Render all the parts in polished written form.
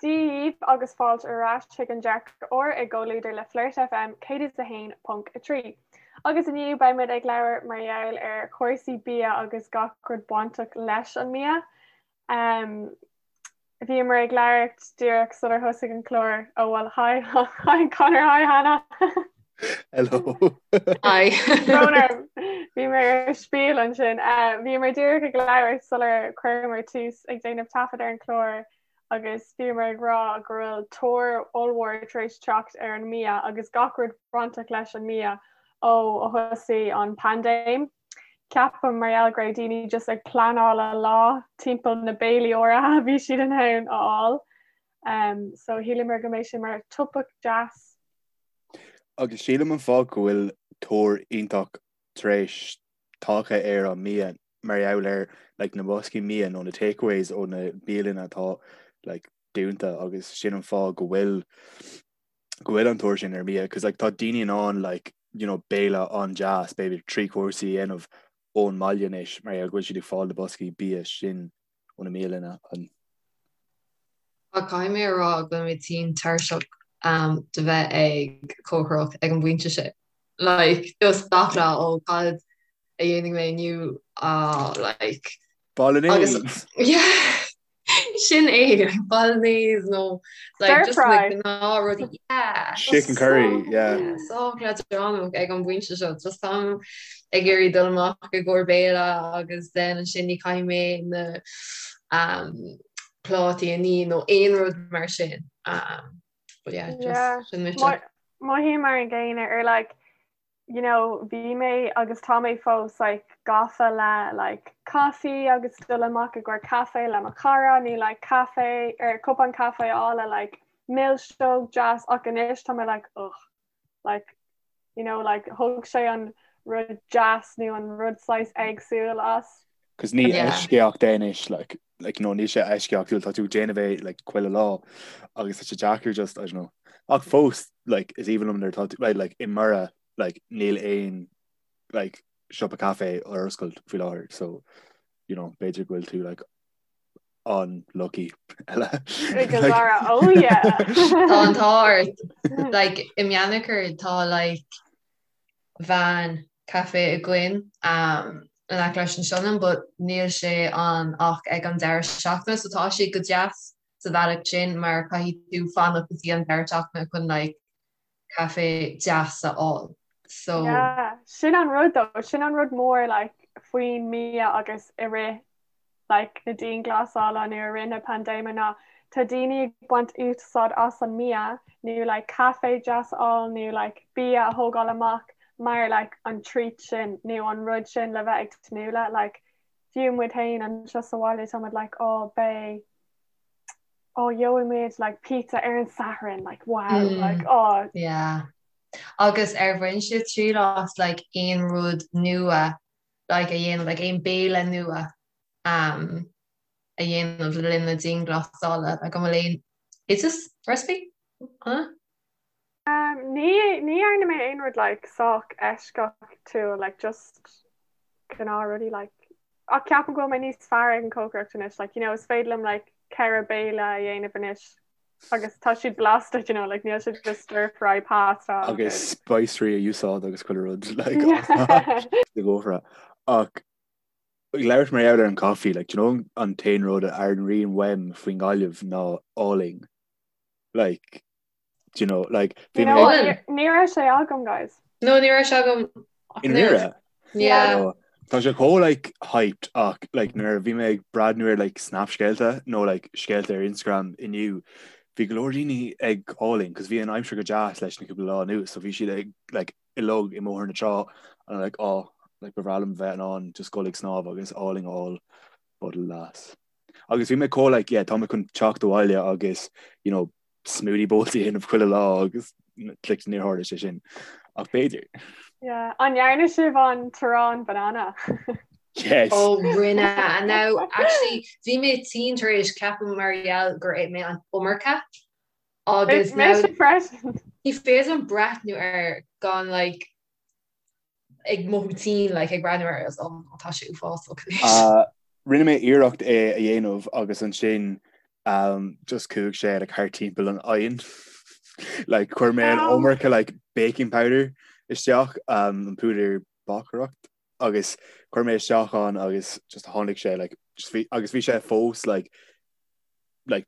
Dia dhaoibh agus fáilte ar ais chuig an Dearcadh Úr i gcomhluadar le Flirt FM 101.3. Agus inniu beidh muid ag labhairt mar gheall ar chúrsaí bia agus gach rud bainteach leis an mbia. Um, bhíomar ag labhairt díreach sular thosaigh an clár. Oh well, hi, hi Conor, hi Hannah. Hello. Hi. Brón orm. Bhí mé ar spiel ansin. Uh, bhíomar díreach ag labhairt sular chuireamar tús ag déanamh taifead ar an chlár agus bhíomar ag rá go bhfuil tóir ollmhór tar éis teacht ar an mbia agus gach rud bainteach leis an mbia ó a thosaigh an paindéim. Ceapaim mar gheall go raibh daoine just ag pleanáil a lá timpeall na béilí áirithe a bhí siad in ann a fháil. Um, so shíleamar go mbeidh sé mar topaic deas. Agus sílim an fáth go bhfuil tóir iontach tar éis tagtha ar an mbia mar gheall ar like na boscaí mbia nó na takeaways ó na bialanna atá like dúnta agus sin an fáth go bhfuil go bhfuil an tóir sin ar mbia cos like tá daoine in ann like you know béile an-deas b'fhéidir trí chúrsaí a dhéanamh ón mbaile anois mar gheall go bhfuil siad ag fáil na boscaí bia sin ó na mbialanna an Ach caithfidh mé a rá go bhfuil mé tinn tuirseach de bheith ag cócaireacht ag an bpointe sin. Like, just gach lá, ó cad a dhéanfaidh mé inniu, ah, like. Bolognese! Agus, yeah, sin é, bolognese nó like just na gnáthrudaí, yeah. Chicken curry, yeah. Sách leadránach ag an bpointe seo, just táim ag iarraidh dul amach i gcomhair béile agus then ansin ní caithfidh mé na um, plátaí a ní nó aon rud mar sin. Um, but yeah, just yeah. sin mise. Mothaím mar an gcéanna ar like you know bhí mé agus tá mé fós like gafa le like caife agus dul amach i gcomhair caife le mo chara nó like caife ar cupán caife a fháil le like milseog deas ach anois tá mé like ugh like you know like thug sé an rud deas nó an rud saghas éagsúil as. Cos ní eisceacht é anois like like you know níl sé eisceachtúil tá tú ag déanamh é like chuile lá agus tá sé deacair just I don't know ach fós like is aoibhinn liom nuair atá tú like i mBoire like níl aon like siopa caife ar oscailt faoi láthair so you know b'fhéidir go bhfuil tú like an-lucky eile. Zara, oh yeah. Tá an t-ádh ort like i mBeannchar tá like veain caife againn um, in aice leis an Sionainn but níl sé ann ach ag an deireadh seachtaine so tá sé go deas sa bhealach sin mar caithfidh tú fanacht go dtí an deireadh seachtaine chun like caife deas a fháil. So Yeah, sin an rud though, sin an rud mór like faoin mbia agus i rith like na dianghlasála nó i rith na paindéime ná tá daoine ag baint úsáid as an mbia nó like caife deas a fháil nó like bia a thógáil amach mar like an treat sin nó an rud sin le bheith ag tnúth le like fiú muid féin anseo sa bhaile tá muid like oh beidh oh gheobhaidh muid like pizza ar an Satharn like wow mm. like oh yeah agus ar bhain sibh triail as like aon rud nua like a dhéanamh like aon béile nua um, a dhéanamh le linn na dianghlasála like an bhfuil aon oideas recipe huh? Um, ní ní dhearna mé aon rud like sách eisceachtúil like just gnáthrudaí like ach ceapaim go bhfuil mé níos fearr ag an cócaireacht anois like you know is féidir liom like ceithre béile a dhéanamh anois agus tá siad blasta you know like níl siad just stir fry pasta agus spicery a úsáid agus chuile rud like de gcófra ach ag labhairt mar gheall ar an coffee like do you know an t-aon rud a airíonn uaim faoin nGaillimh ná álainn like do you know like bhí mé Ní raibh sé agam guys. No ní raibh sé agam I ndáiríre? Yeah. Tá sé chomh like hyped ach like nuair a bhí mé ag breathnú ar like snap scéalta nó like scéalta ar Instagram inniu bhí go leor daoine ag álainn cos bhí an aimsir go deas leis na cúpla lá anuas so bhí siad ag like uilig i mBóthar na Trá and I'm like oh like ba bhreá liom bheith in ann just dul ag snámh agus álainn a fháil but alas. Agus bhí mé chomh like yeah tá mé chun teacht abhaile agus you know smoothie bowls a dhéanamh chuile lá agus like níor tharla sé sin ach b'fhéidir. Yeah. An ndearna sibh an t-arán banana? Yes. Oh rinne and now actually bhí mé tinn tar éis ceapaim mar gheall gur ith mé an iomarca agus now Mise freisin. ní féidir liom breathnú air gan like ag mothú tinn like ag breathnú air agus oh tá sé uafásach anois. Uh, rinne mé iarracht é a dhéanamh agus ansin. Um, just chuaigh sé like thart timpeall an oigheann. Like chuir mé an iomarca like baking powder isteach um, an púdar bácaireacht agus chuir mé isteach ann agus just tháinig sé like just bhí agus bhí sé fós like like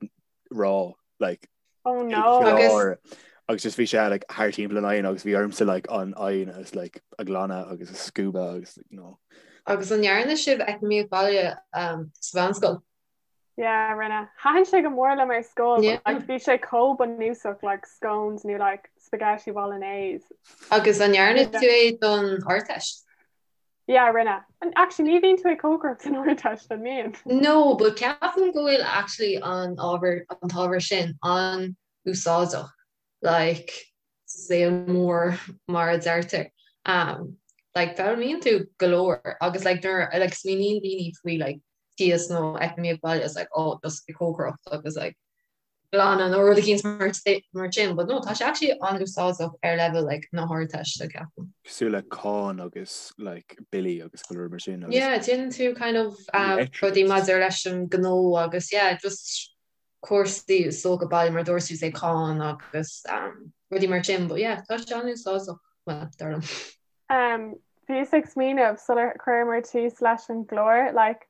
raw like Oh no. Agus agus just bhí sé like thart timpeall an oigheann agus bhí ormsa like an oigheann agus like a ghlanadh agus a scuabadh agus like, no. Agus an ndearna sibh eacnamaíocht baile um, sa mheánscoil? Yeah, rinne. Thaitin sé go mór liom ar scoil, but like bhí sé chomh bunúsach like scones nó like spaghetti bolognese. Agus an ndearna tú é don Ardteist? Yeah, rinne. And actually ní bhíonn tú ag cócaireacht san Ardteist, an mbíonn? No, but ceapaim go bhfuil actually an ábhar, an t-ábhar sin an-úsáideach. Like sa saol mór mar a deirtear. Um, like foghlaimíonn tú go leor agus like nuair like smaoiníonn daoine faoi like tíos nó eacnamaíocht baile it's like oh just ag cócaireacht agus like glanadh nó rud eicínt mar mar sin but no tá sé actually an-úsáideach ar level like na hArdteiste ceapaim. Cosúil le cáin agus like billí agus go leor mar sin agus Yeah, déanann tú kind of um, rudaí maidir leis an gnó agus yeah, just cúrsaí is dócha baile mar dúirt tú say cáin agus rudaí mar sin but yeah tá sé an-úsáideach well dar liom. Um, bhíos ag smaoineamh sular chuireamar tús leis an gclár like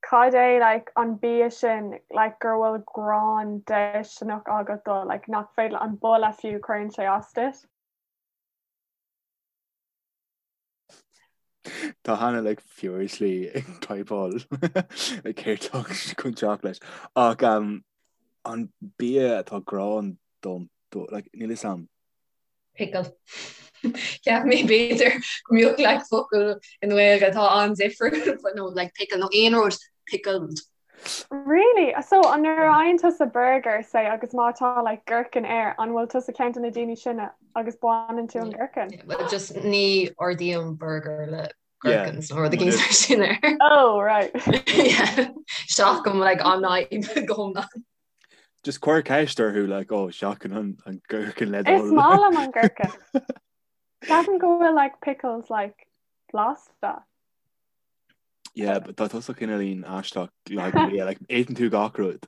cad é like an bia sin like gur bhfuil gráin déisteanach agat dó like nach féidir an boladh fiú cuireann sé as duit. Tá Hannah like furiously ag typeáil like céard atá chun teacht leis. Ach um, an bia atá gráin dom do like níl fhios a'm. Pickle. Cheap mé b'fhéidir go mbeadh like focal i nGaeilge atá an-difriúil but no like pickle nó aon rud pickled. Really? So an nuair a fhaigheann tusa burger say agus má tá like gherkin air, an bhfuil tusa ceann de na daoine sin agus baineann tú an gherkin? Yeah, well just ní ordaím burger le gherkins nó rud éigin mar sin air. Oh, right. Yeah. Seachaim like an fhadhb go hiomlán. Just cuir ceist orthu like oh seachain an an gherkin le do Is maith liom an gherkin. Ceapaim go bhfuil like pickles like blasta. Yeah, but tá tusa cineáilín aisteach like, yeah, like, itheann tú gach rud.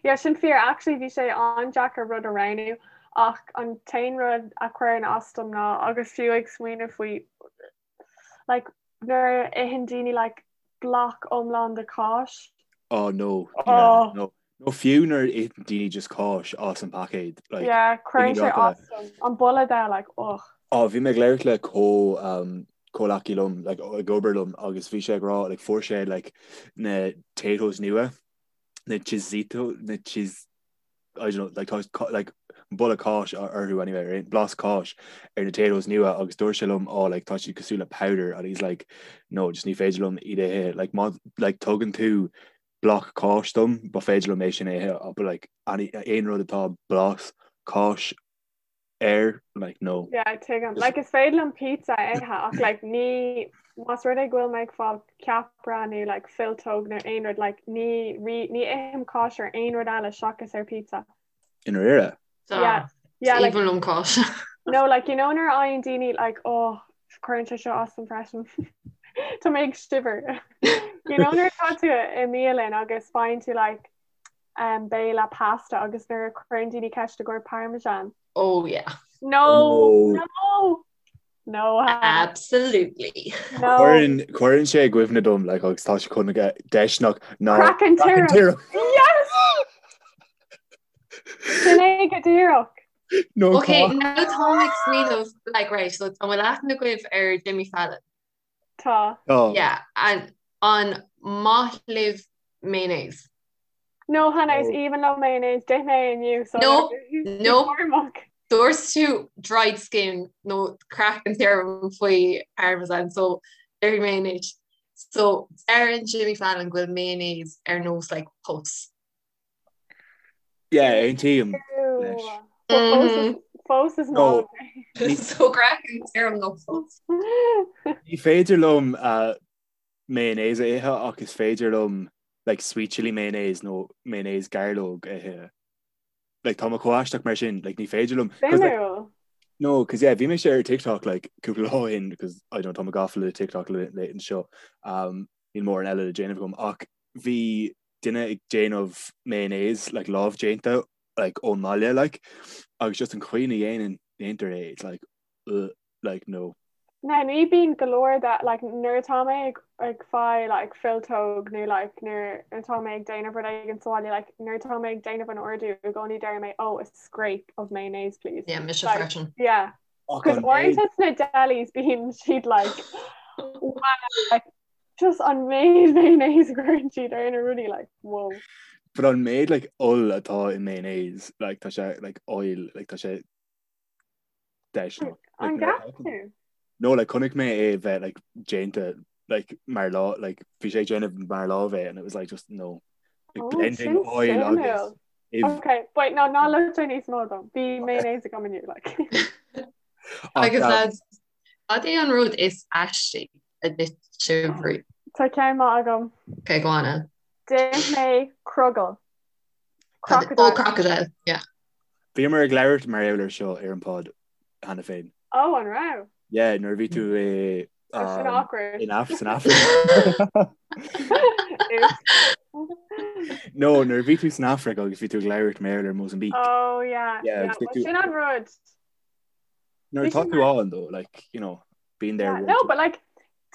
Yeah, sin fíor actually bhí sé an-deacair rud a roghnú ach an t-aon rud a chuireann as dom ná agus fiú ag smaoineamh faoi like, nuair a itheann daoine like, bloc iomlán de cáis. Oh no, yeah, oh. no. Nó fiú nuair a itheann daoine just cáis as an paicéad. Like, yeah, cuireann sé as dom. An boladh de, like, ugh. Oh, bhí mé ag labhairt le comh um, comhleacaí liom, like, ag obair liom, agus bhí sé ag rá, like, fuair sé, like, na Taytos nua, na Cheezito, na Cheez, I don't know, like, tá, like, boladh cáis orthu anyway, ar aon, blas cáis ar na Taytos nua, agus dúirt sé liom, oh, like, tá siad cosúil le powder, and he's like, no, just ní féidir liom iad a ithe, like, má, like, tugann tú bloc cáis dom, ba féidir liom é sin a ithe, but like any, aon rud atá blas cáis air, like no. Yeah, tuigim. Like is féidir liom pizza a ithe ach like ní más rud é go bhfuil mé ag fáil ceapaire nó like filltóg nó aon rud like ní ní ithim cáis ar aon rud eile seachas ar pizza. I ndáiríre? Yeah. Yeah, like, Even liom cáis. No, like you know nuair a fhaigheann daoine like oh cuireann sé seo as dom freisin. Tá mé ag shiver. You know nuair atá tú i mbialann agus faigheann tú like um, béile pasta agus nuair a chuireann daoine ceist i gcomhair parmesan. Oh yeah. No, no, no. No. Absolutely. No. Cuireann cuireann sé i gcuimhne dom like agus tá sé chun a bheith déisteanach ná Craiceann tirim. Yes! Sin é go díreach. No Ok, now táim ag smaoineamh like right, so an bhfuil aithne agaibh ar Jimmy Fallon? Tá. Tá. Yeah, and an maith libh mayonnaise? No, Hannah, is aoibhinn liom mayonnaise, d'ith mé inniu, so No, no. Dúirt tú dried skin nó craiceann tirim faoi parmesan, so déarfaidh mé anois. So deireann Jimmy Fallon go bhfuil mayonnaise ar nós like pus. Yeah, aontaím leis. Fós is maith liom. So craiceann tirim nó pus. Ní féidir liom uh, mayonnaise a ithe ach is féidir liom like sweet chili mayonnaise nó mayonnaise gairleog a ithe. Like tá mé chomh aisteach mar sin, like ní féidir liom. 'Cause, like, Suimiúil. No, cos yeah, bhí mise ar TikTok like cúpla lá ó shin because I don't tá mé gafa le TikTok le anseo. Um, níl mórán eile le déanamh agam ach bhí. duine ag déanamh mayonnaise like lámh déanta like ón mbaile like agus just an chaoi ina dhéanann déantar é it's like ugh like no. Now ní bíonn go leor de like nuair atá mé ag ag fáil like friotóg nó like nuair atá mé ag déanamh rud éigin sa bhaile like nuair atá mé ag déanamh an ordú i gcónaí deir mé oh a scrape of mayonnaise please. Yeah, mise Like, freisin. yeah. Ach Cos an méid uaireanta sna delis bíonn siad like wow like just an méid mayonnaise a chuireann siad ar na rudaí like whoa. But an méid like oil atá i mayonnaise like tá sé like oil like tá sé deiseanna. An gceap tú? No like chonaic mé é bheith like déanta like mar lá like bhí sé ag déanamh mar lámh é and it was like just no like Oh, blending sin oil agus suimiúil. if Okay, wait, no, ná luaigh níos mó dom. Bhí mayonnaise agam inniu, like. ach Agus um, lads, cad é an rud is aistí a d'ith sibh riamh? Tá ceann maith agam. Okay, go on then. D'ith mé crogall. Cad- Crocodile. Oh, crocodile, yeah. Bhíomar ag labhairt mar gheall air seo ar an pod cheana féin. Oh, an raibh? Yeah, nuair a bhí tú i Oh, sin um, awkward. in Af san Afraic. Oops. No, nuair a bhí tú san Afraic agus bhí tú ag labhairt mar gheall ar Mozambique. Oh, yeah. Yeah, Yeah, agus bhí well, tú sin an rud. nuair Bhí atá sin tú mar ann though, like, you know, been there Yeah, one no, two. but like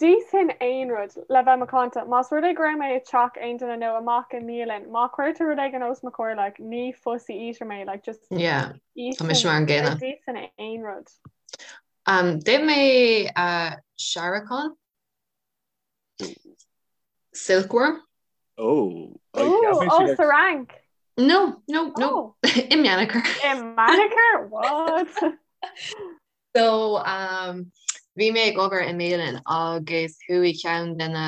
d'íosfainn aon rud le bheith macánta. Más rud é go raibh mé i dteach aon duine nó amach i mbialann, má chuirtear rud éigin os mo chomhair, like, ní fussy eater mé, like, just Yeah, tá mise íosfainn mar an like, gcéanna. d'íosfainn aon rud. Um, d'ith mé uh, searacán, silkworm. Oh, I Ooh, cheap mé oh, siad sa Fhrainc. No, no, no, Oh, i Meanchar. i Meanchar? What? So, um, bhí mé ag obair i mbialann agus chuaigh ceann de na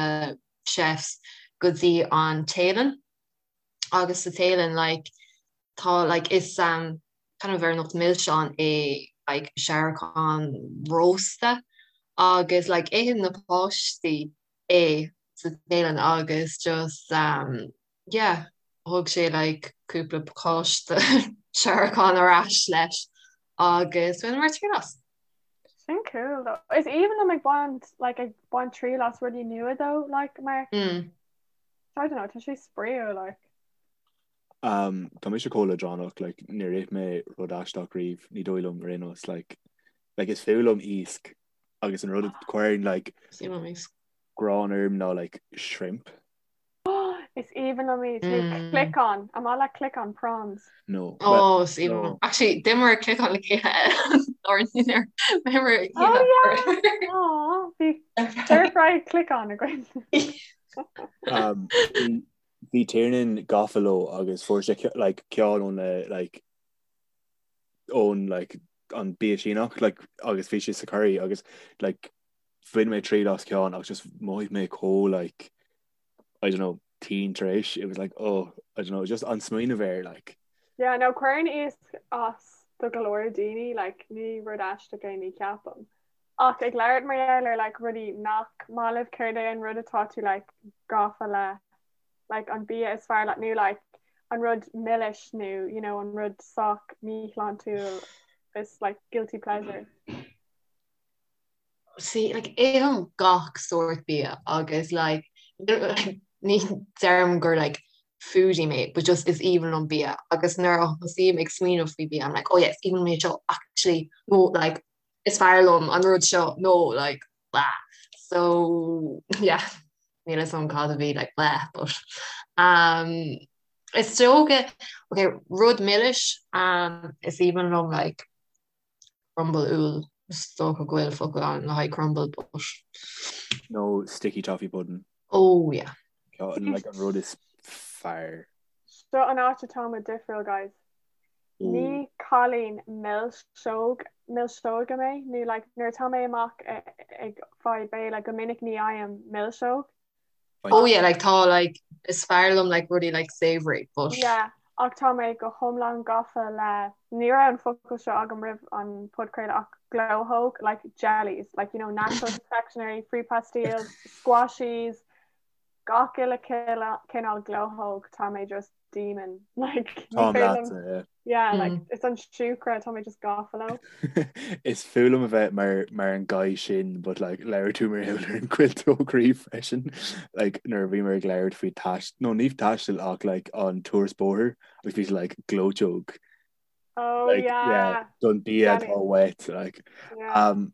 chefs go dtí an Téalainn agus sa Téalainn like tá like is um, kind of ar nós milseán é like searacán rósta agus like itheann na páistí é sa Téalainn agus just um, yeah thug sé like cúpla pacáiste searacán ar ais leis agus bhaineamar triail as. Sin cool though. Is aoibhinn liom ag baint like ag baint triail as rudaí nua though like mar Mm. I don't know tá sé spraíúil like. Um, tá mise chomh leadránach like níor ith mé rud aisteach riamh ní dóigh liom ar aon nós like like is fuath liom iasc agus an rud a chuireann like Is aoibhinn liom iasc. gráin orm ná like shrimp. Is aoibhinn liom iad. Nó cliceán. An maith leat cliceán prawns? No. Well, Oh, is aoibhinn no. liom. Actually, d'imir cliceán le chéile or níor d'imir Oh chéile yeah! Aw, bhí stir fry cliceán againn. Um, bhí bhí Tiernan gafa leo agus fuair sé ce- like ceann ón na like ón like an bia Síneach like agus bhí sé sa curry agus like bhain mé triail as ceann agus just mhothaigh mé chomh like I don't know tinn tar éis it was like oh I don't know just an smaoineamh air like. Yeah no cuireann iasc as do go leor daoine like ní rud aisteach é ní ceapaim. Ach ag labhairt mar gheall ar like rudaí nach maith libh céard é an rud atá tú like gafa le like an bia is fearr leat nó like an rud milis nó you know an rud sách míshláintiúil is like guilty pleasure. See, like, ithim gach sórt bia agus like, ní deirim gur like foodie mé, but just is aoibhinn liom bia agus nuair a thosaím ag smaoineamh faoi bia, I'm like, oh yeah, is aoibhinn liom é seo, actually, no, like, is fearr liom an rud seo, no, like, blah. So, yeah, níl a fhios agam cad a bhí, like, blah, but, um, is dócha, okay, rud milis, um, is aoibhinn liom, like, Crumble úll, is dócha go bhfuil focal ann le haghaidh crumble but. Nó sticky toffee pudding. Oh yeah. Ceann like an rud is fearr. Seo an áit atá muid difriúil guys. Ní cailín milseog, milseoige mé nó like nuair atá mé amach ag fáil béile go minic ní fhaighim milseog. Oh yeah, like tá like is fearr liom like rudaí like savoury but. Yeah, ach tá mé go hiomlán gafa le, ní raibh an focal seo agam roimh an podchraoladh ach glóthóg, like jellies, like you know natural confectionery, fruit pastilles, squashies, gach uile cineál glóthóg, tá mé just demon, like ní Táim féidir liom, leatsa, yeah. Yeah, like mm. it's an siúcra tá mé just gafa leo. Is fuath liom a bheith mar mar an guy sin, but like labhair tú mar gheall ar an cuilteog croí freisin like nuair a bhíomar ag labhairt faoi tais nó ní taisteal ach like an turas bóthair agus bhí like gleoiteog. Oh like, yeah. yeah don bia atá uait like yeah. um,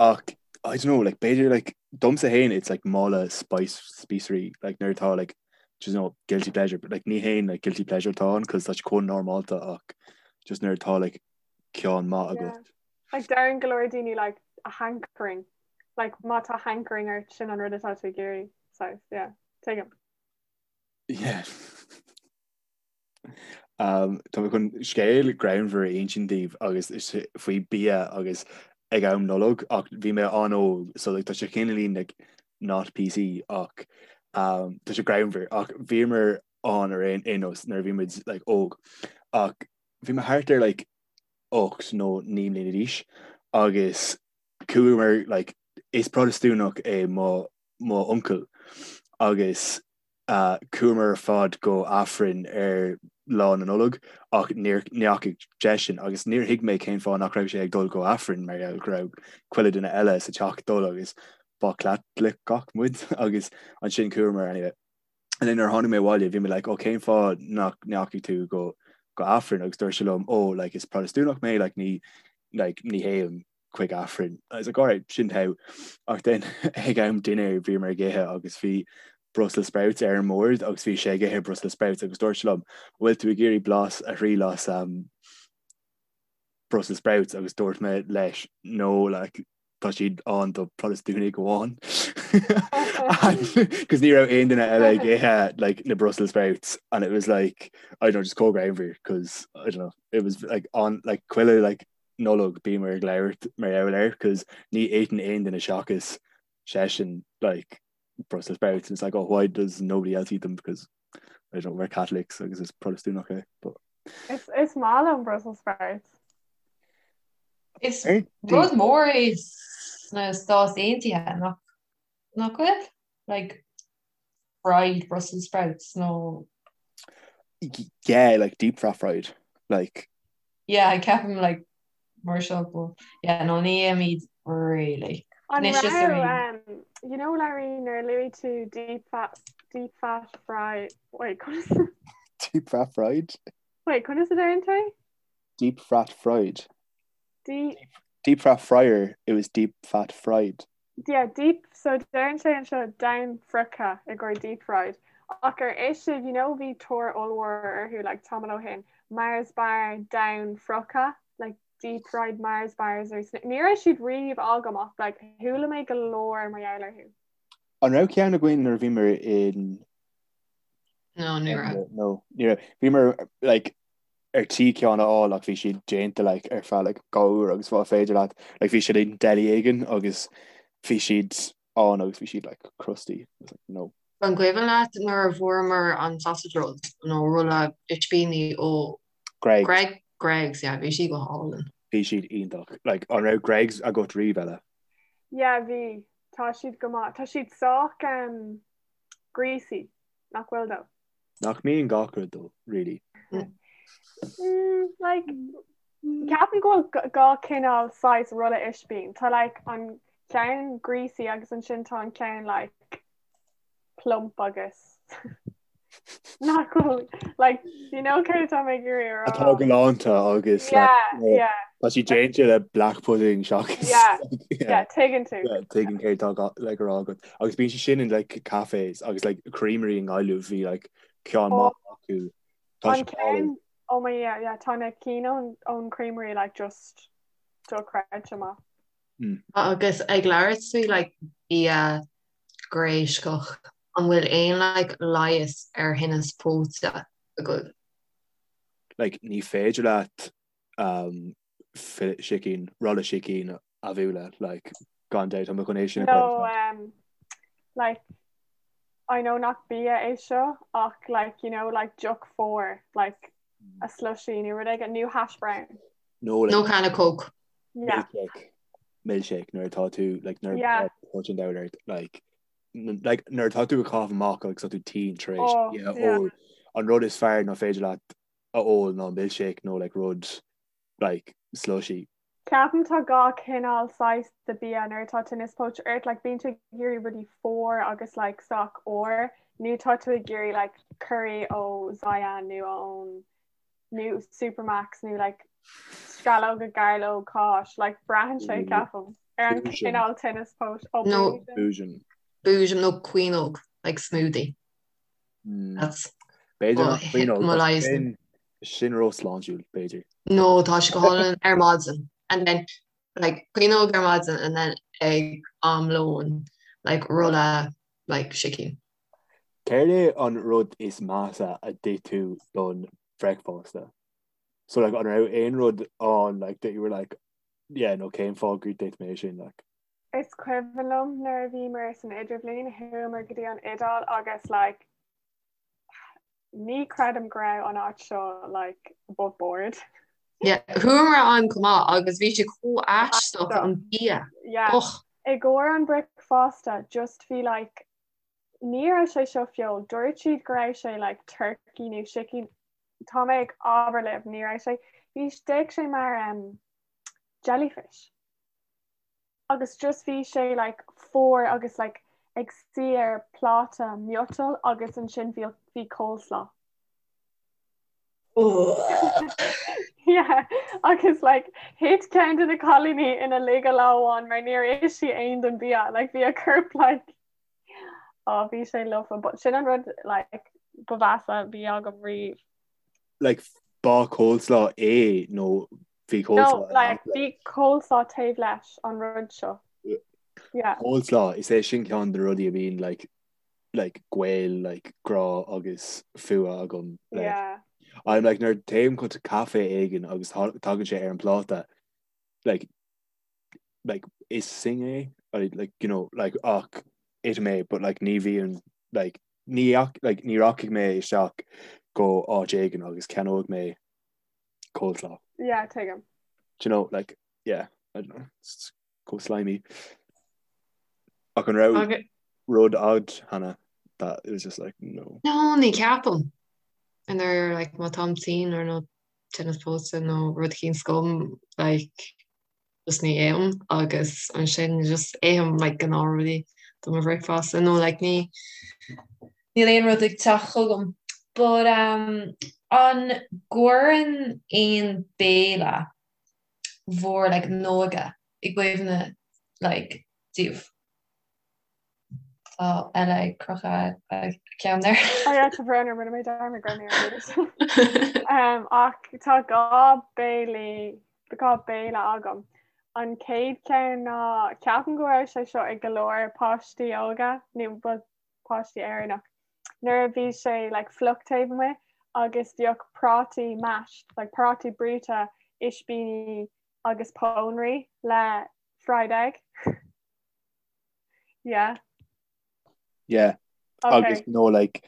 ach I don't know like b'fhéidir like domsa féin it's like mála spice spíosraí like nuair atá like just know guilty pleasure but like ní haon like guilty pleasure atá ann cos tá sé chomh normálta ach just nuair atá like ceann maith agat. Like deireann go leor daoine like a hankering like má tá hankering ort sin an rud atá tú ag iarraidh so yeah tuigim. Yeah. Um, tá mé chun scéal greannmhar a insint daoibh agus is faoi bia agus ag am Nollag ach bhí mé an-óg so like, tá sé cineáilín like, not PC ach um, tá sé greannmhar ach bhíomar ann ar aon aon nós nuair a bhí muid like, óg ach bhí mé thart ar like, 8 nó 9 mbliana d'aois agus chuamar like, is Protastúnach é mo mo uncail agus Chuamar ar fad go Aifreann ar Lá na Nollag ach níor ndeachaigh seisean agus níor thuig mé cén fáth nach raibh sé ag dul go Aifreann mar gheall go raibh chuile duine eile sa teach ag dul agus ba Chaitliceach muid agus ansin chuamar anyway. And then nuair a tháinig mé abhaile bhí mé like oh cén fáth nach ndeachaigh tú go go Aifreann agus dúirt sé liom oh like is Protastúnach mé like ní like ní théim chuig Aifreann. I was like alright, sin togha. Ach then ag am dinnéir bhíomar ag ithe agus bhí Brussels sprouts ar an mbord agus bhí sé ag ithe Brussels sprouts agus dúirt sé liom, bhfuil tú ag iarraidh blas a thriail as um, Brussels sprouts agus dúirt mé leis no like tá siad ann do Protastúnaigh amháin. Cos ní raibh aon duine eile ag ithe like na Brussels sprouts and it was like I don't know just chomh greannmhar cos I don't know it was like on like chuile like Nollag bíomar ag labhairt mar gheall air cos ní itheann aon duine seachas seisean like Brussels sprouts and it's like oh why does nobody else eat them because I don't know we're Catholics agus is Protastúnach é but Is is maith liom Brussels sprouts. Is rud mór é sna Stáit Aontaithe nach nach bhfuil? Like fried Brussels sprouts nó Yeah, like deep fat fried like Yeah, ceapaim like mar seo but yeah, no ní ithimid really. An raibh um, you know Larry nuair a luaigh tú deep fat deep fat fry wait conas Deep fat fried? Wait conas a deireann tú? Deep fat fried. Deep Deep fat fryer, it was deep fat fried. Yeah, deep, so deireann sé anseo domhainfhriochta i gcomhair deep fried. Ach ar ith sibh, you know bhí tóir ollmhór orthu like tamall ó shin, Mars bar domhainfhrioctha, like deep fried Mars bars or ní raibh siad riamh agam ach like chuala mé go leor mar gheall orthu. An raibh ceann againn nuair a bhíomar in No, ní raibh. No, ní raibh. Bhíomar like ar tí ceann a fháil ach bhí siad déanta like ar feadh like 2 uair agus bá féidir leat like bhí siad in deli éigin agus bhí siad ann agus bhí siad like crusty. I was like, no. An cuimhin leat nuair a bhfuaireamar an sausage roll nó rolla ispíní ó Greggs. Greg Greggs, yeah, bhí siad go hálainn. Bhí siad iontach. Like an raibh Greggs agat riamh Ella? Yeah, bhí. Tá siad go maith. Tá siad sách um, greasy, nach bhfuil though? Nach mbíonn gach rud though, really? Mm, like, ceapaim go bhfuil dhá cineál saghas rolla ispín. Tá like an ceann greasy agus ansin tá an ceann like plump agus nach bhfuil like you know céard atá mé ag iarraidh a rá. Atá galánta agus like, Yeah, yeah. Tá sí déanta le black pudding seachas Yeah, yeah, tuigeann tú. Yeah, tuigim céard atá like a rá agat. Agus bíonn sé sin in like cafés agus like creamery i nGaillimh bhí like ceann Oh. maith acu. Tá An sé álainn. ceann oh my yeah, yeah, tá na cinn ón ón creamery like just dochreidte maith. Mm. Agus ag labhairt faoi like bia gréascach, an bhfuil aon like leigheas ar thinneas póite agaibh? Like ní féidir leat um, sicín, rolla sicín a bhualadh, like, gan dabht, tá mé chun é sin a chur No, um, like, I know nach bia é seo ach like, you know, like deoch fuar, like a slushy nó rud éigin, nó hash brown. No, like, Nó canna Coke. Yeah. milkshake, milkshake nuair atá tú, like, nuair Yeah. atá póit an diabhail ort, like, n- like, nuair atá tú ag caitheamh amach agus tá tú tinn tar éis Oh, bia yeah. ól, an rud is fearr ná féidir leat. a ól ná milkshake nó like rud like slushy. Ceapaim tá gach cineál saghas de bia nuair atá tinneas póite ort, like bíonn tú ag iarraidh rudaí fuar agus like sách úr nó tá tú ag iarraidh like curry ó Zion nó ón nó Supermacs nó like sceallóga gairleog cáis, like braitheann sé ceapaim ar an cineál tinneas póite. Ó No. Boojum. Boojum nó caoineog, like smoothie. Hmm. That's B'fhéidir nach caoineog, mo leigheas. Sin sin ró-shláintiúil, b'fhéidir. No, tá sé go hálainn ar maidin. And then like caoineog ar maidin and then ag am lóin like rolla like sicín. Céard é an rud is measa a d'ith tú don bhricfeasta? So like an raibh aon rud ann like that you were like yeah no cén fáth gur d'ith mé sin like? Is cuimhin liom nuair a bhíomar san idirbhliain, chuamar go dtí an Iodáil agus like ní creidim go raibh an áit seo like above board. Yeah, chuamar ann chomh maith agus bhí sé chomh aisteach an bia. Yeah. Och. I gcomhair an bricfeasta just bhí like ní raibh sé seo feoil, dúirt siad go raibh sé like turkey nó sicín, tá mé ag abair libh ní raibh sé, bhí d'fhéach sé mar um, jellyfish. agus just bhí sé like fuar agus like ag suí ar pláta miotail agus ansin bhí bhí coleslaw. Yeah, agus like thit ceann de na cailíní ina laige lá amháin mar níor ith sí aon den bia, like bhí a corp like oh bhí sé lofa, but sin an rud like ba mheasa a bhí agam riamh. Like ba coleslaw é nó bhí coleslaw No, like bhí coleslaw taobh leis an rud seo. Yeah. Coleslaw, is é sin ceann de na rudaí a bhíonn like like gaol like grá agus fuath agam leis. Yeah. I'm like nuair téim chuig caife éigin agus tagann sé ar an pláta like like is thing é I, like you know like ach ithim é but like ní bhíonn like ní like ní rachaidh mé isteach go áit éigin agus ceannóidh mé coleslaw. Yeah, tuigim. Do you know, like, yeah, I don't know, it's chomh slimy. Ach an raibh okay. rud agat, Hannah, that it was just like, no. No, ní ceapaim. And they're like, má táim tinn or nó tinneas póite nó rud éicint agam, like, just ní ithim agus ansin just ithim like gnáthrudaí do mo bhricfeasta nó like ní níl aon rud ag teacht chugam. But um, an gcuireann aon béile bhur like n-óige i gcuimhne like daoibh? Tá Ella ag crochadh a ceann there. Oh yeah, tá brón orm, rinne mé dearmad go raibh mé ar mute. Um, ach tá gá béilí, gá béile agam. An chéad cheann ná ceapaim go raibh sé seo ag go leor páistí óga nó ba páistí Éireannach. Nuair a bhí sé like, fliuch taobh amuigh agus bhíodh prátaí mashed, like prátaí brúite, ispíní agus pónairí le fried egg. Yeah. Yeah. Okay. Agus no like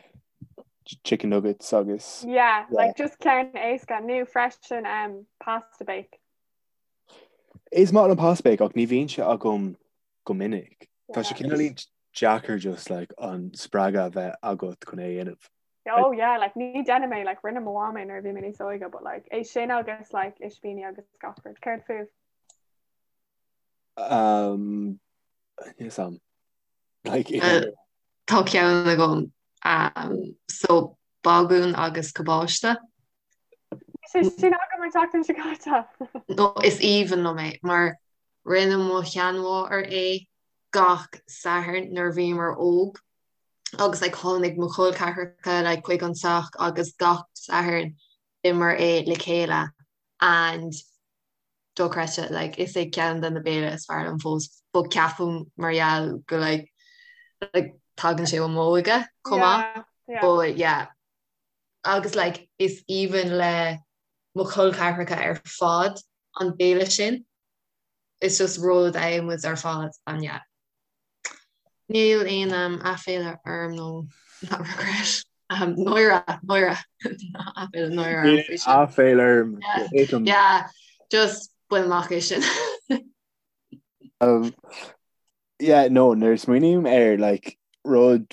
chicken nuggets agus Yeah, yeah. like just ceann éasca nó freisin um, pasta bake. Is maith an pasta bake ach ní bhíonn sé agam go minic. Tá sé cineál deacair just like an spreagadh a bheith agat chun é a dhéanamh. Oh yeah, like ní déanaim é like rinne mo mham é nuair a bhí mé níos óige, but like é sin agus like ispíní agus gach rud. Céard fúibh? Um, yes, um, like, uh, Tá ceann agam um, so bagún agus cabáiste. Sé sin agam an tseachtain seo caite. No, is aoibhinn liom é mar rinne mo sheanmháthair é gach Satharn nuair a bhíomar óg agus like, tháinig mo chol ceathracha like, chuig an teach agus gach Satharn d'itheamar é le chéile and dochreidte like is é ceann de na béile is fearr liom fós but ceapaim mar gheall go like like tagann sé ó m'óige chomh maith yeah, but yeah agus like is aoibhinn le mo chol ceathracha ar fad an béile sin it's just rud a itheann muid ar fad and yeah Níl aon um, aiféala orm nó not regret. Um, náire, náire. Aiféala, náire orm faoi sin. Aiféala orm. Yeah, yeah, just bain amach é sin. Um, yeah, no, nuair a smaoiním ar like, rud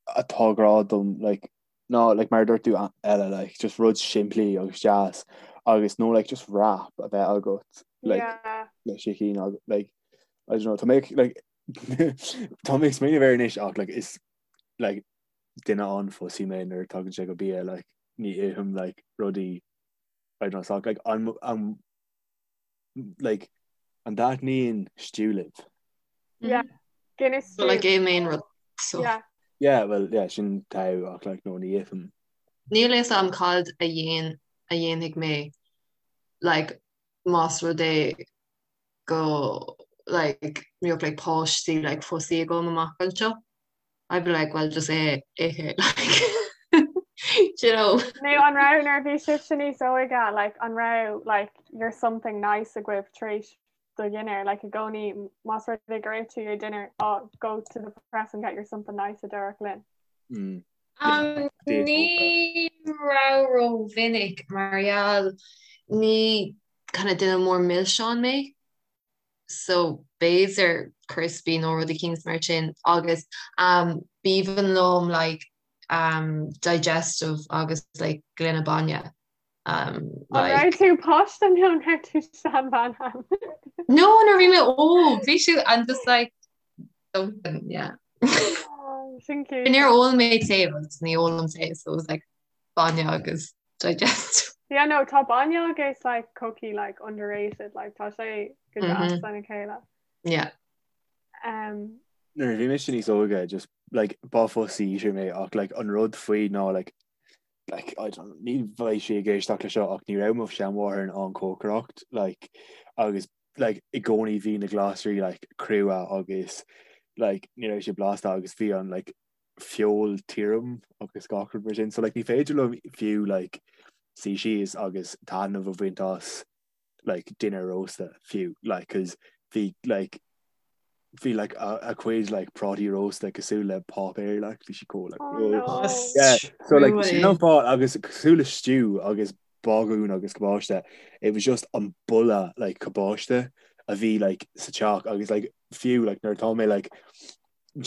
atá grá dom like, Ná like mar a dúirt tú Ella like just rud simplí agus deas agus nó like just wrap a bheith agat like Yeah. le sicín agus like I don't know tá mé like tá mé ag smaoineamh air anois ach like is like duine an-fussy mé nuair a tagann sé go bia like ní ithim like rudaí I don't know so like an an like an dtaitníonn stew libh? Yeah. Guinness So like é main rud so. Yeah. Yeah, well, yeah, sin togha ach like no ní ithim. Níl a fhios agam cad a dhéan a dhéanfaidh mé like más rud é go like mbeadh like páistí like fussy agam amach anseo. I'd be like well just é ithe like do you know. Nó an raibh nuair a bhí sibhse níos óige like an raibh like your something nice agaibh tar éis do dhinnéir like i gcónaí más rud é gur ith tú your dinner oh go to the press and get your something nice a déarfadh linn. Mm. Um, ní raibh rómhinic mar gheall ní kind of duine mór milseán mé so b'fhéidir crispy nó rud eicínt mar sin agus um, b'aoibhinn liom like um, digestive agus like gloine bainne. Um, An like... raibh tú páiste nó an raibh tú seanbhean ann? No, nuair a bhí mé óg, bhí siad and just like something, yeah. Oh, sin cute. Níor ól mé tae agus ní ólaim tae, so it was like bainne agus digestive. Yeah, no, tá bainne agus like cookie like underrated, like tá sé go deas lena chéile. Yeah. Um, Nuair a bhí mise níos óige just like ba fussy eater mé ach like an rud faoi ná like like I don't ní bheidh sí ag éisteacht le seo ach ní raibh mo sheanmháthair in ann cócaireacht like agus like i gcónaí bhí na glasraí like crua agus like ní raibh sé blasta agus bhí an like feoil tirim agus gach rud mar sin. So like ní féidir liom fiú like suí síos agus taitneamh a bhaint as like dinnéar rósta fiú like cause bhí like bhí like a, a cuid like prátaí rósta cosúil le páipéar like bhí sí chomh like Oh, no. Yeah, so like sin an fáth agus cosúil le stew agus bagún agus cabáiste it was just an boladh like cabáiste a bhí like sa teach agus like fiú like nuair atá mé like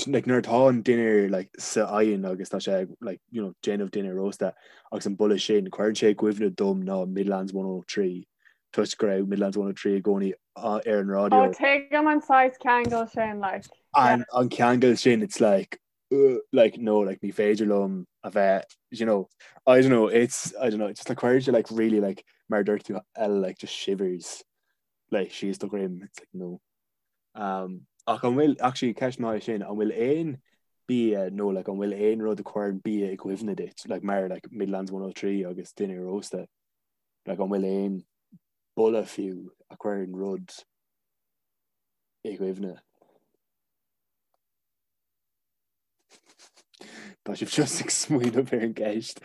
like nuair atá an dinnéar like sa oigheann agus tá sé like you know déanamh dinnéar rósta agus an boladh sin cuireann sé i gcuimhne dom ná Midlands 103 toisc go raibh Midlands 103 i gcónaí ar an raidió. Oh tuigim an saghas ceangal sin like. An an ceangal sin it's like uh, like no like ní féidir liom a bheith you know I don't know it's I don't know it's just like cuireann sé like really like mar dúirt tú Ella like just shivers like síos do dhroim it's like no. Um, ach an bhfuil, actually, ceist maith sin, an bhfuil aon bia nó like, an bhfuil aon rud a chuireann bia i gcuimhne duit, like, mar like, Midlands 103 agus dinnéar rósta, like, an bhfuil aon boladh fiú a chuireann rud i gcuimhne? Tá sibh just ag smaoineamh ar an gceist.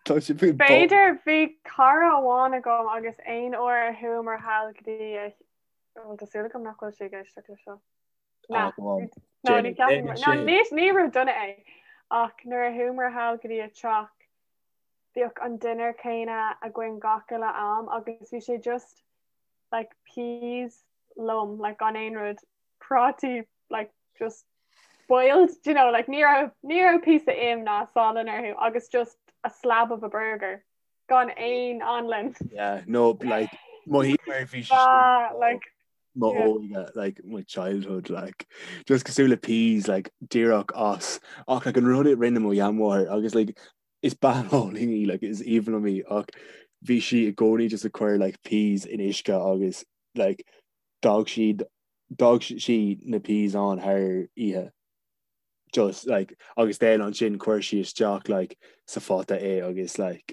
Tá sé faoi B'fhéidir bhí cara amháin agam agus aon uair a chuamar thall go dtí a bhuel tá súil agam nach bhfuil sí ag éisteacht le seo. Ah, Na, go on. no, ní Déan ceapaim déan no, sin. ní ní rud dona é ach nuair a chuamar thall go dtí a teach bhíodh an dinnéar céanna againn gach uile am agus bhí sé just like peas lom like gan aon rud prátaí like just boiled do you know like ní raibh ní raibh píosa im ná salann orthu agus just a slab of a burger gan aon anlann. Yeah, no, like mo hí mar bhí sé Ah, like mo yeah. óige, like my childhood, like just cosúil le peas, like díreach as ach like an rud a rinne mo sheanmháthair agus like is bean álainn í, like is aoibhinn liom í ach bhí sí i gcónaí just ag cur like peas in uisce agus like d'fhág siad d'fhág sí na peas ann thar oíche just like agus then ansin chuir sí isteach like sa phota é agus like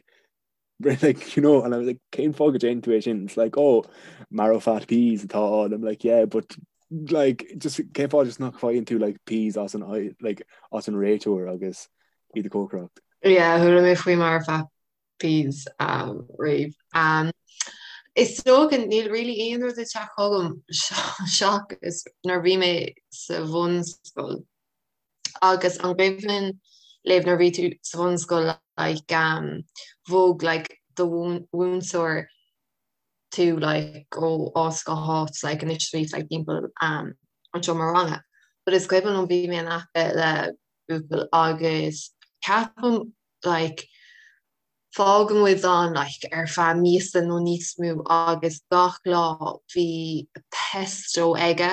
like you know and I was like cén fáth go déanann tú é sin it's like oh marrowfat peas atá ann I'm like yeah but like just cén fáth just nach bhfaigheann tú like peas as an like as an réiteoir agus iad a chócaireacht. Yeah, chuala mé faoi marrowfat peas riamh. Is dócha níl really aon rud ag teacht chugam seachas nuair a bhí mé sa bhunscoil agus an gcuimhin libh nuair a bhí tú sa bhunscoil like bhog like do mhúinteoir tú like ó áit go háit like anois bhí like timpeall an. an seomra ranga. But is cuimhin liom bhí mé in aice le buachaill agus ceapaim like fágann muid ann like ar feadh míosa nó níos mó agus gach lá bhí pesto aige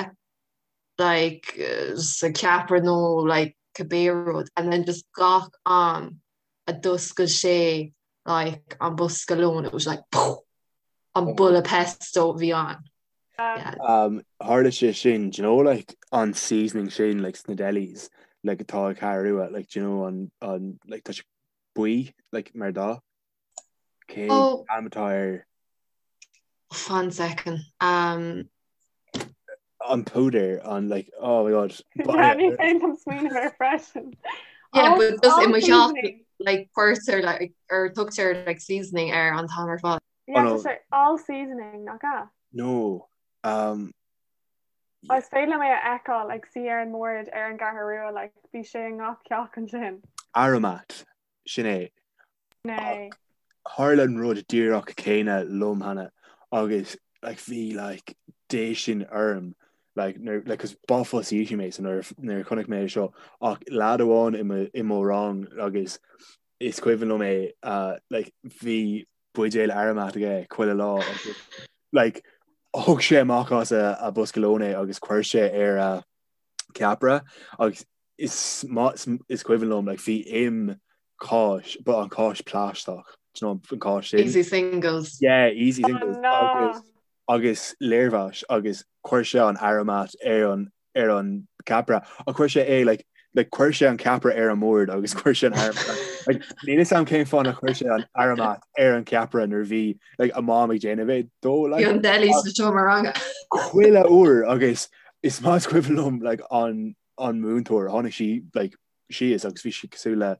like sa ceapaire nó like cibé rud and then just gach am a d'oscail sé like an bosca lóin it was like poof an boladh pesto a bhí ann. Yeah. Um, tharla sé sin, do you know, like, an seasoning sin, like, sna delis, like, atá ag Ceathrú Rua, like, do you know, an, an, like, tá sé buí, like, mar dath? Cén Oh. ainm atá air? Fan second. Um, An púdar, an, like, oh my god. Yeah, ní féidir liom smaoineamh air freisin. Yeah, All- but just all i mo theach, seasoning. like, cuirtear, like, or tugtar, like, seasoning air an t-am ar fad. Yeah, Oh, no. tá sé all seasoning, nach ea? No. Um, Is féidir liom é a fheiceáil ag suí ar an mbord ar an gCeathrú Rua, like, bhí sé i ngach teach ansin. Aromat, sin é. Sin é. Tharla an rud díreach céanna liom cheana agus like bhí like déistin orm like nuair like 'cause ba fussy eater mé so nuair nuair a chonaic mé é seo ach leaid amháin i mo i mo rang agus is cuimhin liom é uh, like bhí buidéal Aromat aige chuile lá agus like thug sé amach as a, a bosca lóin é agus chuir sé ar a ceapaire agus is maith is cuimhin liom like bhí im cáis but an cáis plaisteach do you know an cáis sin Easy singles. yeah easy Oh singles no. agus agus léirmheas agus chuir sé an Aromat ar an ar an ceapaire ach chuir sé é like like chuir sé an ceapaire ar an mbord agus chuir sé an Aromat like níl a fhios agam cén fáth nár chuir sé an Aromat ar an ceapaire nuair a bhí like a mom ag déanamh é dó like Bhí an deli sa seomra ranga. chuile uair agus is maith is cuimhin liom like an an múinteoir tháinig sí like síos agus bhí sí cosúil le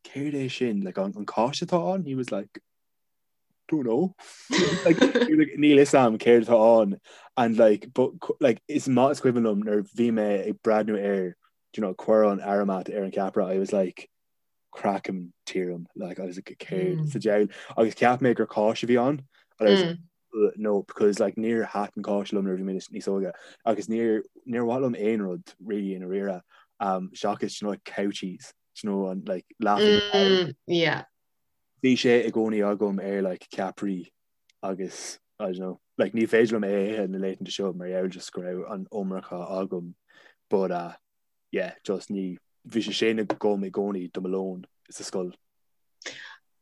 céard é sin like an an cáis atá ann he was like don't know like, like, níl a fhios agam céard atá ann and like but like is maith is cuimhin liom nuair bhí mé ag breathnú air do you know cuir an Aromat ar an ceapaire I was like craiceann tirim like I was like céard mm. sa diabhal agus cheap mé gur cáis a bhí ann and I was mm. no because like níor thaitin cáis liom nuair a bhí mé níos óige agus níor níor mhaith liom aon rud really i ndáiríre um, seachas you know, like cow cheese you know, an like laughing mm, yeah. Bhí sé i gcónaí agam ar like ceapairí agus I don't know like ní féidir liom é a ithe na laethanta seo mar gheall just go raibh an iomarca agam but uh, yeah just ní bhí sé sin agam i gcónaí do mo lón sa scoil.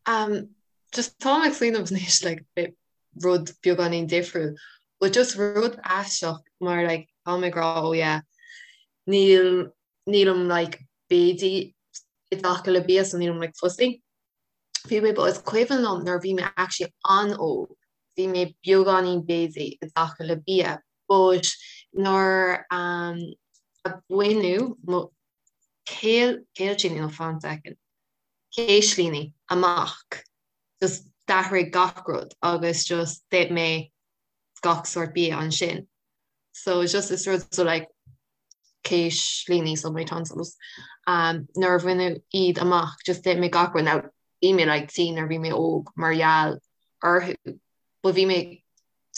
Um, just táim ag smaoineamh anois like bit rud beagáinín difriúil but just rud aisteach mar like táim ag rá oh yeah níl nílim like béidí i dtaca le bia so nílim like fussy. Bhí mé but is cuimhin liom nuair a bhí mé actually an-óg bhí mé beagáinín béidí i dtaca le bia but nuair um, a baineadh mo céil céiltíní nó fan second céislíní amach just d'athraigh gach rud agus just d'ith mé gach sórt bia ansin. So just is rud so like céislíní so my tonsils um, nuair a baineadh iad amach just d'ith mé gach rud now bhí mé like tinn nuair bhí mé óg mar gheall orthu but bhí mé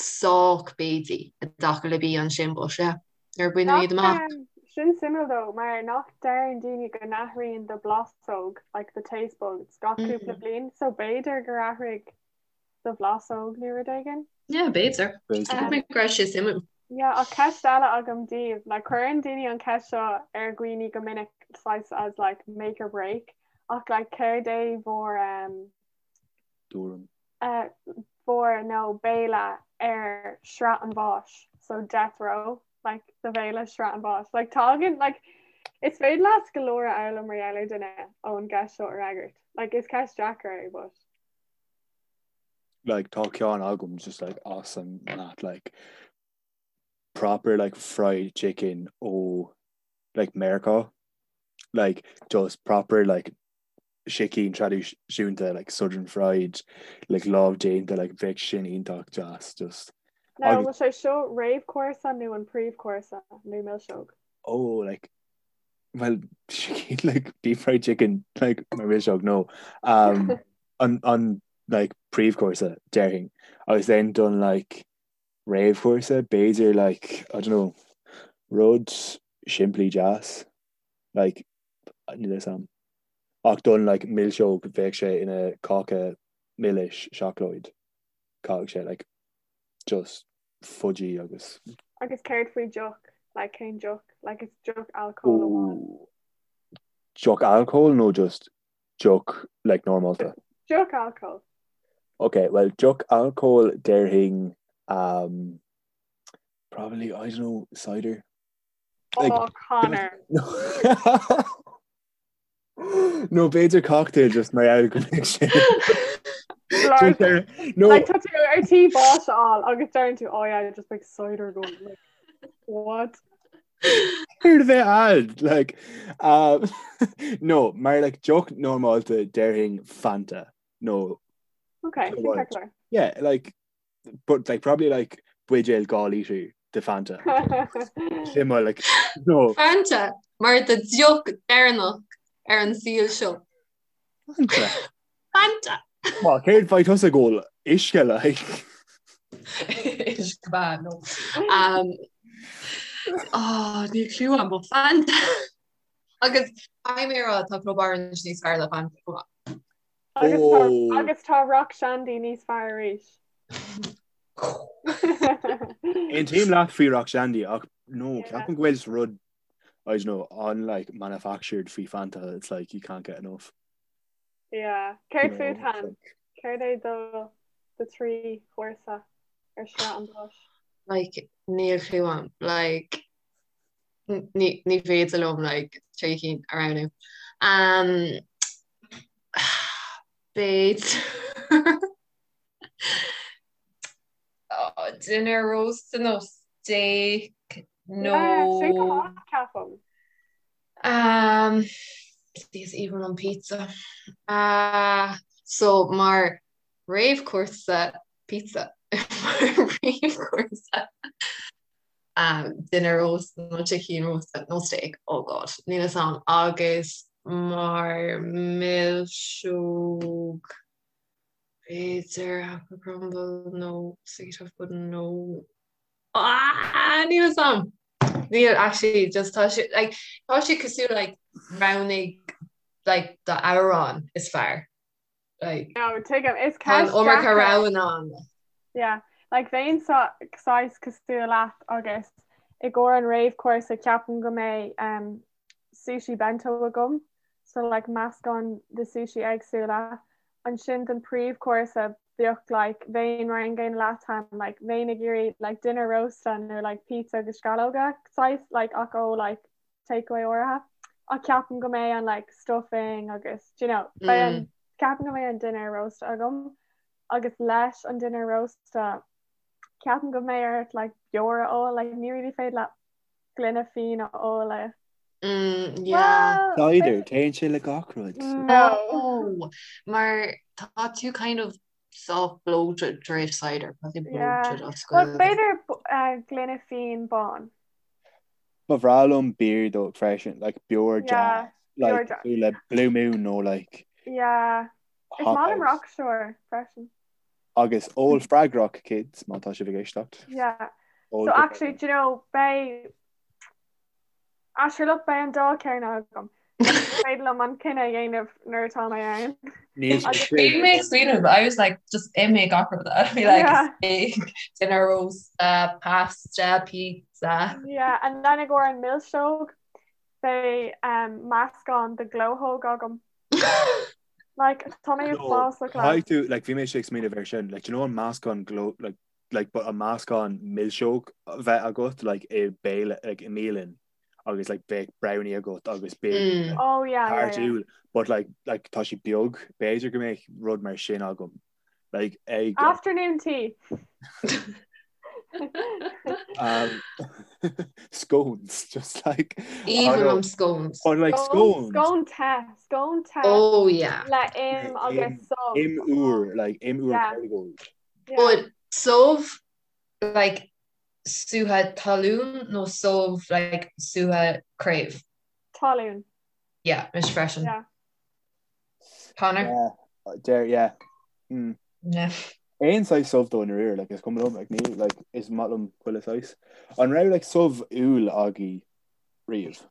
sách béidí i dtaca le bia ansin but yeah nuair a baineadh iad amach. Um, sin suimiúil though mar nach deireann daoine go n-athraíonn do bhlasóg like the taste buds gach mm. cúpla bliain so b'fhéidir gur athraigh do bhlasóg nó rud éigin? Yeah, b'fhéidir. Cheap mé go raibh sé suimiúil. Yeah, ach ceist eile agam daoibh, like cuireann daoine an ceist seo ar dhaoine go minic saghas as like make or break, ach like céard é bhur um, Dúram. uh, bhur nó béile ar sraith an bháis, so death row, like do bhéile sraith an bháis. Like tagann like is féidir leat go leor a fhoghlaim mar gheall ar duine ón gceist seo a fhreagairt. Like is ceist deacair é, but like tá ceann agam just like awesome that like proper like fried chicken ó like Meiriceá like just proper like sicín traidisiúnta like southern fried like lámh déanta like bheadh sin iontach deas just Now bhfuil sé seo réamhchúrsa nó an príomhchúrsa nó milseog? Oh like well sicín like deep fried chicken like mar milseog no um an an like príomhchúrsa déarfainn agus then don like réamhchúrsa b'fhéidir like I don't know. Rud simplí deas, like, níl a fhios a'm. Ach don like milseog bheadh sé ina cáca milis seacláid. Caithfidh sé like just fudgy agus. Agus céard faoi deoch? Like cén deoch? Like is deoch alcóil amháin. Ooh. Deoch alcóil nó just deoch like normálta? Deoch alcóil. Ok, well deoch alcóil déarfainn um, probably, I don't know, cider. Like, oh, Connor. No b'fhéidir cocktail just mar gheall go mbeidh sé. No. Like, tá tú ar tí bás a fháil agus deireann tú oh yeah, just like cider going like, what? Céard a bheith ad like um, no mar like deoch normálta déarfainn Fanta no Okay, sin yeah like but like probably like buidéal 2 lítre de Fanta. Sin mar like no. Fanta mar do deoch deireanach ar an saol seo. Fanta. Fanta. Well, céard bheidh tusa ag ól uisce like. Uisce beatha no. Um, oh, níl clue agam but Fanta. Agus caithfidh mé a rá tá Club Orange níos fearr le Fanta chomh maith. Agus tá, oh. agus tá Rock Shandy níos fearr arís. Aontaím leat faoi Rock Shandy ach no, ceapaim go bhfuil just rud I don't know, on like manufactured faoi Fanta, it's like you can't get enough. Yeah. Céard fút Han? Céard é do do thrí chúrsa ar sraith an bháis? Like níl clue agam. Like ní féidir liom like trí cinn a roghnú. Um, B'fhéidir oh, dinnéar rósta nó steak nó Sin go maith ceapaim. Um, is aoibhinn liom pizza. Uh, so mar réamhchúrsa pizza mar réamhchúrsa. dinnéar rósta nó sicín rósta nó steak, oh god, níl fhios a'm, agus mar milseog b'fhéidir apple crumble nó sticky toffee pudding nó ah níl fhios a'm! Níl actually just tá sé like tá sé cosúil like roghnaigh like do amhrán is fearr. Like, No, tuigim, is Tá an ceist iomarca deacair. roghanna ann. Yeah, like bheinn saghas cosúil leat agus i gcomhair an réamhchúrsa ceapaim go mbeidh um, sushi bento agam, so like meascán de sushi éagsúla. Ansin don príomhchúrsa bheadh like bheinn mar an gcéanna leat Han, like bheinn ag iarraidh like dinnéar rósta nó like pizza agus sceallóga saghas like ach ó like takeaway áirithe ach ceapaim go mbeidh an like stuffing agus do you know beidh an mm. ceapaim go mbeidh an dinnéar rósta agam agus leis an dinnéar rósta ceapaim go mbeidh ort like beoir a ól like ní really féidir leat gloine fíon a ól le Mm, yeah. Well, Cider, téann sé le gach rud. No. Mar tá tú kind of soft bloated tar éis cider, tá tú bloated as Well, b'fhéidir uh, gloine fíon bán. Ba bhreá liom beer though freisin, like beoir deas, like cosúil le Blue Moon nó like Yeah. Is maith liom Rockshore freisin. Agus ól freagrach kids má tá sibh ag éisteacht. Yeah. So actually, do you know, beidh Ah sure look beidh an dá ceann agam. Is féidir liom an cinneadh a dhéanamh nuair atá mé ann. Níl sé Agus Bhí mé ag smaoineamh, I was like, just imigh gach rud. I'd be like, Yeah. steak, dinnéar rósta, pasta, pizza. Yeah, and then i gcomhair an milseog beidh um, meascán de glóthóg agam. Like, tá mé No, uafásach leat. caithfidh tú, like, bhí mé ag smaoineamh air sin, like, do you know an meascán gló, like, like but an meascán milseog a bheith agat like i béile like i mbialann agus like bheadh brownie agat agus b'fhéidir Mm. Oh yeah, yeah, yeah. tart úll but like like tá sé beag b'fhéidir go mbeadh rud mar sin agam like ag Afternoon tea. um, scones just like Aoibhinn liom scones. But like scones Scone te, scone te Oh yeah. le im agus subh. im úr like im úr Yeah. Kerrygold. But subh like sútha talún nó subh like sútha craobh? Talún. Yeah, mise freisin. Yeah. Connor? Yeah, dear, yeah. Mm. Yeah. Aon saghas subh dó i ndáiríre, like, is cuma liom, like, ní, like, is maith liom chuile saghas. An raibh, like, subh úll agaibh riamh?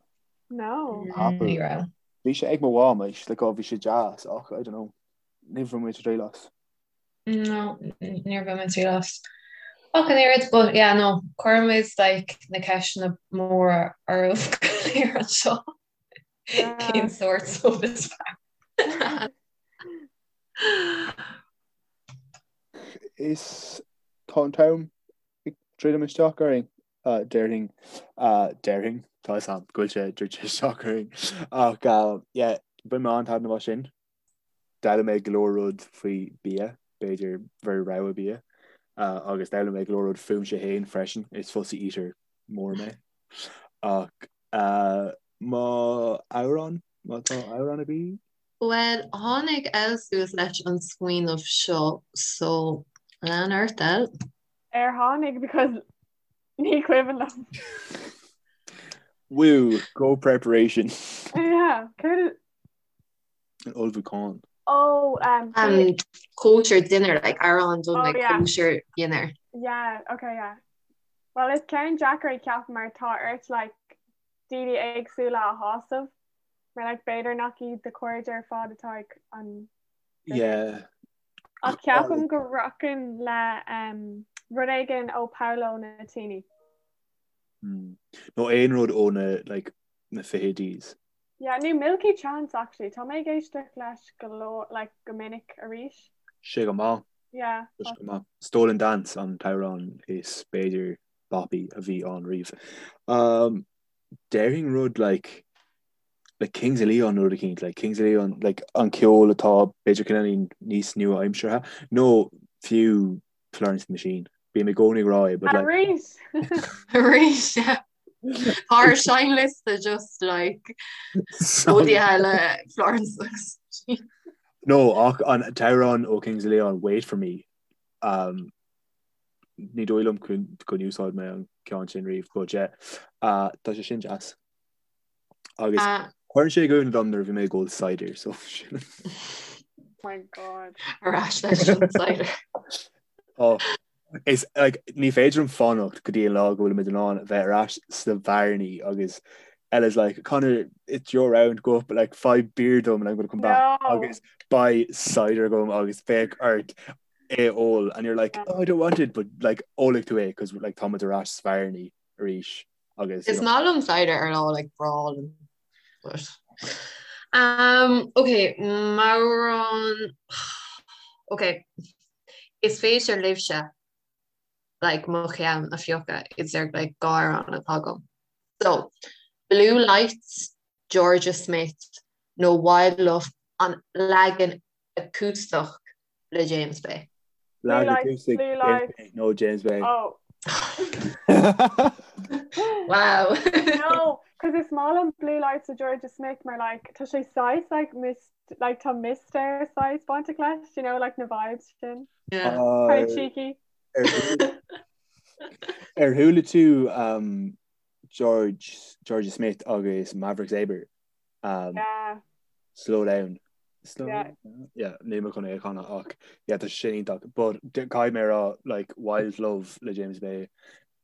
No. Apple. Ní raibh. Bhí sé ag mo mham, like, like, oh, bhí sé deas, ach, I don't know, níor bhain mé triail as. No, níor bhain mé triail as. Ach an oiread, but yeah, no, cuirimid, like, na ceisteanna móra oraibh go léir anseo. Cén sórt subh is fearr? Is tá an t-am ag druidim isteach orainn, déarfainn, déarfainn, tá a fhios agam go bhfuil sé druidte isteach orainn. Ach yeah, bhain mé an-taitneamh as sin. D'fhoghlaim mé go leor rud faoi bia, b'fhéidir bhur rogha bia, agus d'fhoghlaim mé go leor rud fúmsa féin freisin, is fussy eater mór mé. Ach má amhrán, má tá amhrán agaibh? Bhuel, tháinig El suas leis an smaoineamh seo, so lean ort, El. Ar tháinig because ní cuimhin liom. Woo, go preparation. Yeah, céard An ullmhúchán. Oh, um, um, kosher dinner, like amhrán don oh, like yeah. kosher dinner. Yeah, okay, yeah. Well, is ceann deacair é ceapaim mar tá ort like daoine éagsúla a shásamh. Mar like b'fhéidir nach iad do chairde ar fad atá ag an Yeah. Ach ceapaim go rachainn le um, rud éigin ó Paolo Nutini. Mm. Nó aon rud ó na like, na fichidís. Yeah, nó Milky Chance actually. Tá mé ag éisteacht leis go leor like go minic arís. Sé go maith. Yeah. Sé go maith. Stolen Dance an t-amhrán is b'fhéidir boppy a bhí ann riamh. Um, déarfainn rud like like Kings of Leon rud eicínt, like Kings of Leon, like an ceol atá b'fhéidir cineáilín níos nua-aimseartha, nó fiú Florence and the Machine. Bím i gcónaí ag rá é, but like... Arís! Arís, yeah. Tá ár seinnliosta just like rudaí eile Florence and the Machine. No, ach an t-amhrán ó Kings of Leon, Wait For Me, um, ní dóigh liom gur úsáid mé an ceann sin riamh, but yeah, uh, tá sé sin deas. Agus Ah. chuir sé i gcuimhne dom nuair a bhí mé ag ól cider, so sin. My God. Ar ais leis an cider. Oh, is like, ní féidir liom fanacht go dtí an lá go bhfuilimid in ann a bheith ar ais sna bearannaí agus Ella's like, Conor, it's your round, go up, like, faigh beer dom and I'm gonna come back. No. Agus beidh cider agam agus beidh ort é a ól and you're like, oh, I don't want it, but like, ólfaidh tú é cos like, táimid ar ais sna bearannaí arís. agus Is maith liom cider ar lá like breá liom but um ok m'amhrán ok is féidir libhse like mo cheann a phiocadh idir like dhá amhrán atá agam so Blue Lights Jorja Smith nó Wild Love an leagan acústach le James Bay. Blue lights, blue lights. No James Bay. Oh. Wow. No, cos is maith liom Blue Lights le Jorja Smith mar like tá sé saghas like mist like tá mistéir saghas bainteach leis, you know, like na vibes sin. Yeah. Uh, Kind of cheeky. Ar chuala tú um, George Jorja Smith agus Maverick Sabre? Um, Yeah. Slow down. Slow Yeah. down. Yeah, níl mé chun é a chanadh ach yeah, tá sé sin iontach. But caithfidh mé a rá like Wild Love le James Bay.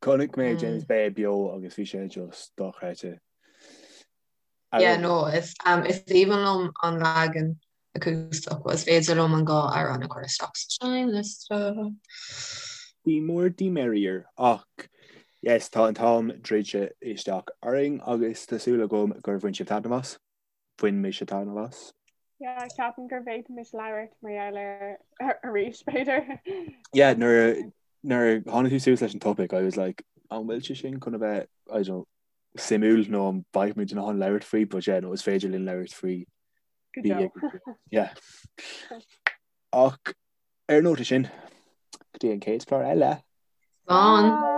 Chonaic mé James Bay beo agus bhí sé just dochreidte. Yeah, no, is um, is aoibhinn liom an leagan acústach, but is féidir liom an dhá amhrán a chur isteach sa seinnliosta. The more the merrier ach yes, tá an t-am druidte isteach orainn agus tá súil agam gur bhain sibh taitneamh as. Bhain mise taitneamh as. Yeah, ceapaim go bhféadfaimis labhairt mar gheall air arís, b'fhéidir. Yeah, nuair nuair a tháinig tú suas leis an topic, I was like, an bhfuil sé sin chun a bheith, I don't know, suimiúil nó an mbeidh muid in ann labhairt faoi, but yeah, no, is féidir linn labhairt faoi. Go deo. Yeah. Ach ar an nóta sin, go dtí an chéad chlár eile. Slán. Bye.